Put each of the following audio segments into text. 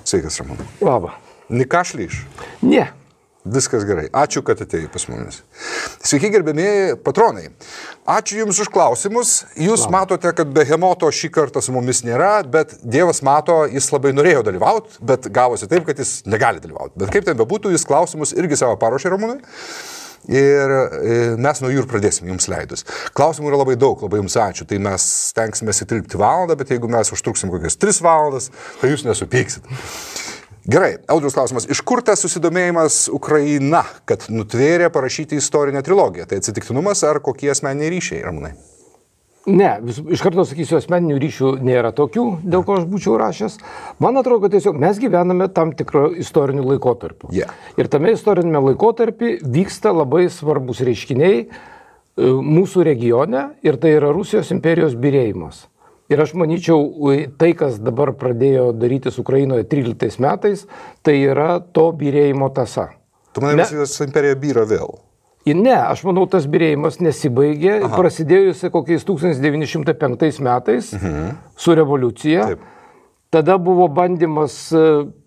Sveikas, Ramūnai. Labą. Nikašlyš? Ne. Viskas gerai. Ačiū, kad atėjai pas mumis. Sveiki, gerbėmieji patronai. Ačiū Jums už klausimus. Jūs matote, kad behemoto šį kartą su mumis nėra, bet Dievas mato, jis labai norėjo dalyvauti, bet gavosi taip, kad jis negali dalyvauti. Bet kaip ten bebūtų, jis klausimus irgi savo paruošė, Ramūnai. Ir mes nuo jų ir pradėsim jums leidus. Klausimų yra labai daug, labai jums ačiū. Tai mes stengsime įtilpti valandą, bet jeigu mes užtruksim kokias 3 valandas, tai jūs nesupyksit. Gerai, Audriaus klausimas. Iš kur tas susidomėjimas Ukraina, kad nutvėrė parašyti istorinę trilogiją? Tai atsitiktinumas ar kokie asmeniniai ryšiai, Ramūnai? Ne, iš karto sakysiu, asmeninių ryšių nėra tokių, dėl ko aš būčiau rašęs. Man atrodo, kad tiesiog mes gyvename tam tikro istorinių laikotarpių. Yeah. Ir tame istorinėme laikotarpį vyksta labai svarbus reiškiniai mūsų regione ir tai yra Rusijos imperijos byrėjimas. Ir aš manyčiau, tai, kas dabar pradėjo darytis Ukrainoje 13 metais, tai yra to byrėjimo tąsa. Tu manai, Rusijos imperija byra vėl? Ne, aš manau, tas byrėjimas nesibaigė, prasidėjusi kokiais 1905 metais su revoliucija. Taip. Tada buvo bandymas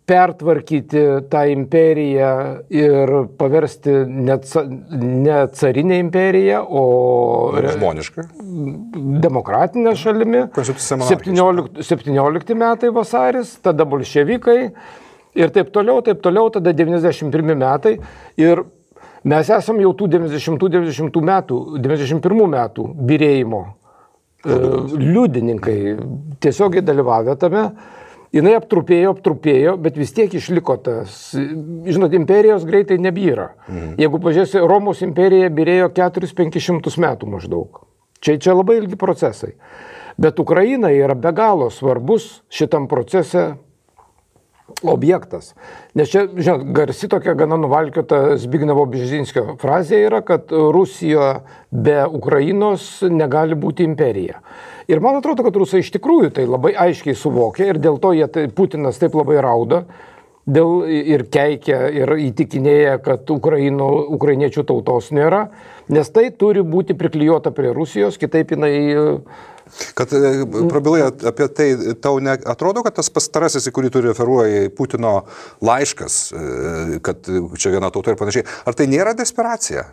pertvarkyti tą imperiją ir paversti ne carinę imperiją, o žmonišką, demokratinę šalimi. 17 metai vasaris, tada bolševikai ir taip toliau, tada 91 metai. Ir mes esam jau tų 91 metų byrėjimo liudininkai, tiesiogiai dalyvavę tame. Jinai aptrupėjo, bet vis tiek išliko tas. Žinot, imperijos greitai nebyra. Jeigu pažiūrėsi, Romos imperija byrėjo 400-500 metų maždaug. Čia labai ilgi procesai. Bet Ukraina yra be galo svarbus šitam procese objektas. Nes čia, žinot, garsi tokia gana nuvalkiota Zbignevo Bžezinskio frazė yra, kad Rusija be Ukrainos negali būti imperija. Ir man atrodo, kad rusai iš tikrųjų tai labai aiškiai suvokia ir dėl to Putinas taip labai rauda ir keikia ir įtikinėja, kad ukrainiečių tautos nėra, nes tai turi būti priklijuota prie Rusijos, kitaip jinai... Kad prabilai apie tai, tau atrodo, kad tas pastarasis, į kurį tu referuoji, Putino laiškas, kad čia viena tauta ir panašiai, ar tai nėra desperacija?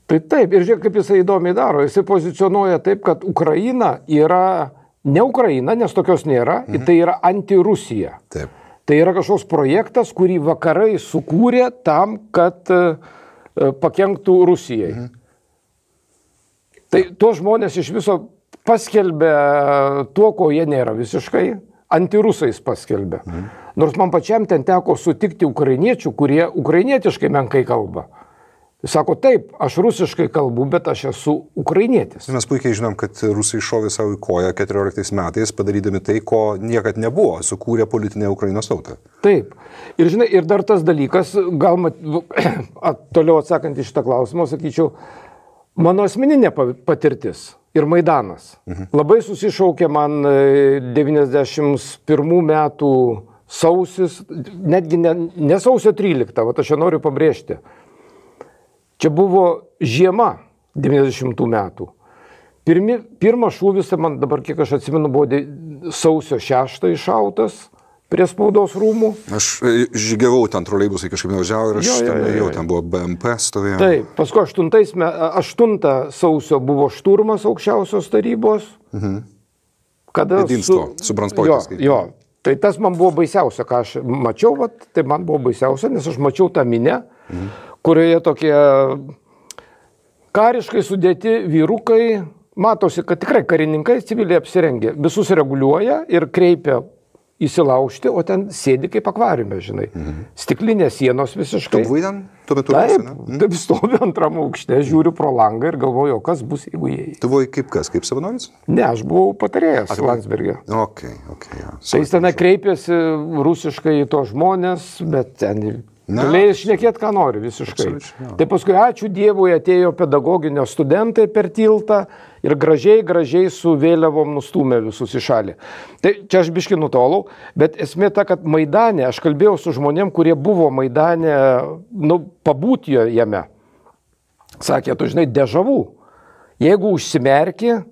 Tai taip, ir žiūrėk, kaip jisai įdomiai daro. Jisai pozicionuoja taip, kad Ukraina yra ne Ukraina, nes tokios nėra, tai yra anti-Rusija. Taip. Tai yra kažkoks projektas, kurį vakarai sukūrė tam, kad pakenktų Rusijai. Tai tuos žmonės iš viso paskelbė tuo, ko jie nėra visiškai, antirusais paskelbė. Nors man pačiam ten teko sutikti ukrainiečių, kurie ukrainietiškai menkai kalba. Sako, taip, aš rusiškai kalbu, bet aš esu ukrainietis. Mes puikiai žinom, kad rusai šovė savo į koją 14 metais, padarydami tai, ko niekad nebuvo, sukūrė politinę Ukrainos tautą. Taip. Ir žinai, ir dar tas dalykas, gal toliau atsakant į šitą klausimą, sakyčiau, mano asmeninė patirtis ir Maidanas. Labai susišaukė man 91 metų sausis, netgi ne sausio 13, vat aš čia noriu pabrėžti. Čia buvo žiema 90 metų. Pirmas šūvis, man dabar, kiek aš atsimenu, buvo sausio 6 iššautas prie spaudos rūmų. Aš žygiavau ten troleibusai kažkaip nevažiavo ir aš jau ten buvo BMP stovėjo. Taip, paskui 8 sausio buvo šturmas aukščiausios tarybos. Kada Jedinstvo, su Branspojtis. Jo, tai tas man buvo baisiausia, ką aš mačiau, tai man buvo baisiausia, nes aš mačiau tą minę, kurioje tokie kariškai sudėti vyrukai, matosi, kad tikrai karininkai civiliai apsirengė, visus reguliuoja ir kreipia įsilaužti, o ten sėdi kaip akvariume, žinai. Stiklinės sienos visiškai. Tu buvai ten? Tuo metu taip, stoviu antram aukšte, žiūriu pro langą ir galvoju, kas bus, jeigu jie. Tu buvai kaip kas, kaip savanoris? Ne, aš buvau patarėjas Landsbergė. Okay, ja. Tai jis ten kreipėsi rusiškai į tos žmonės, bet ten... Galėjai šnekėti, ką nori visiškai. Tai paskui, ačiū Dievui, atėjo pedagoginio studentai per tiltą ir gražiai su vėliavom nustūmė visus į šalį. Tai čia aš biškį nutolau, bet esmė ta, kad Maidane, aš kalbėjau su žmonėm, kurie buvo Maidane, pabūti jame. Sakė, tu žinai, dežavų. Jeigu užsimerki,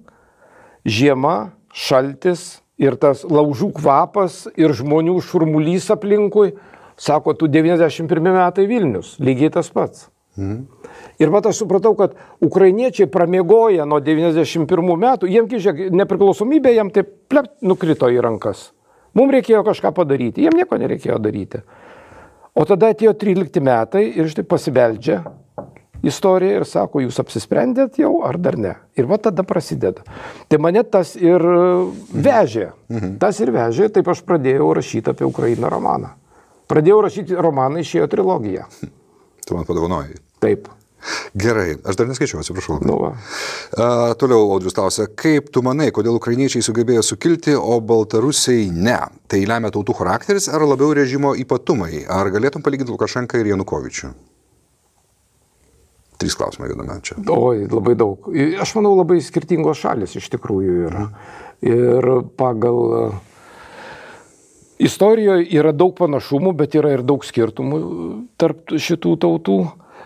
žiema, šaltis, ir tas laužų kvapas, ir žmonių šurmulys aplinkui, sako, tu 91 metai Vilnius, lygiai tas pats. Ir vat aš supratau, kad ukrainiečiai pramiegoja nuo 91 metų, jiems, žiūrėk, nepriklausomybė jam taip nukrito į rankas. Mums reikėjo kažką padaryti, jiem nieko nereikėjo daryti. O tada atėjo 13 metai ir štai pasibeldžia istorija ir sako, jūs apsisprendėt jau ar dar ne. Ir va tada prasideda. Tai mane tas ir vežė. Tas ir vežė, taip aš pradėjau rašyti apie Ukrainą romaną. Pradėjau rašyti romaną, išėjo trilogija. Tu man padovanojai. Taip. Gerai, aš dar neskaičiau, atsiprašau. Nu Toliau Audrius klausia, kaip tu manai, kodėl ukrainiečiai sugebėjo sukilti, o baltarusiai ne? Tai lemia tautų charakteris ar labiau režimo ypatumai? Ar galėtum palyginti Lukašenką ir Janukovičių? 3 klausimai viename čia. Oi, labai daug. Aš manau, labai skirtingos šalis iš tikrųjų yra. Ir pagal istorijoje yra daug panašumų, bet yra ir daug skirtumų tarp šitų tautų.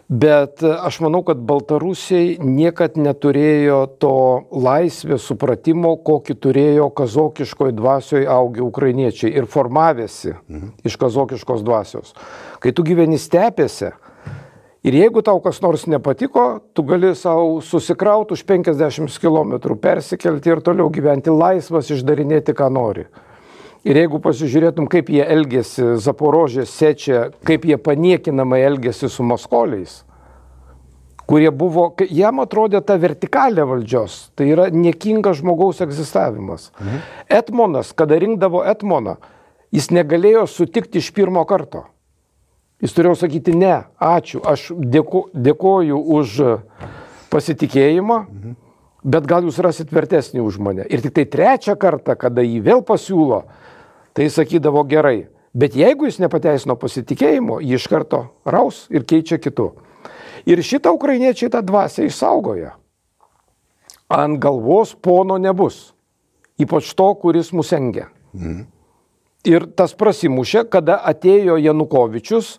Bet aš manau, kad baltarusiai niekad neturėjo to laisvės supratimo, kokį turėjo kazokiškoje dvasioje augę ukrainiečiai ir formavėsi iš kazokiškos dvasios. Kai tu gyveni stepėse ir jeigu tau kas nors nepatiko, tu gali savo susikrauti už 50 km, persikelti ir toliau gyventi laisvas, išdarinėti, ką nori. Ir jeigu pasižiūrėtum, kaip jie elgėsi Zaporožė, Sečia, kaip jie paniekinamai elgėsi su maskoliais, kurie buvo, jam atrodė ta vertikalė valdžios, tai yra niekingas žmogaus egzistavimas. Etmonas, kada rinkdavo etmoną, jis negalėjo sutikti iš pirmo karto. Jis turėjo sakyti, ne, ačiū, aš dėkoju už pasitikėjimą, bet gal jūs rasit vertesnį už mane. Ir tik tai 3 kartą, kada jį vėl pasiūlo, tai sakydavo gerai. Bet jeigu jis nepateisino pasitikėjimo, jį iš karto raus ir keičia kitu. Ir šitą ukrainiečiai tą dvasią išsaugoja. Ant galvos pono nebus. Ypač to, kuris mus engia. Ir tas prasimušė, kada atėjo Janukovičius,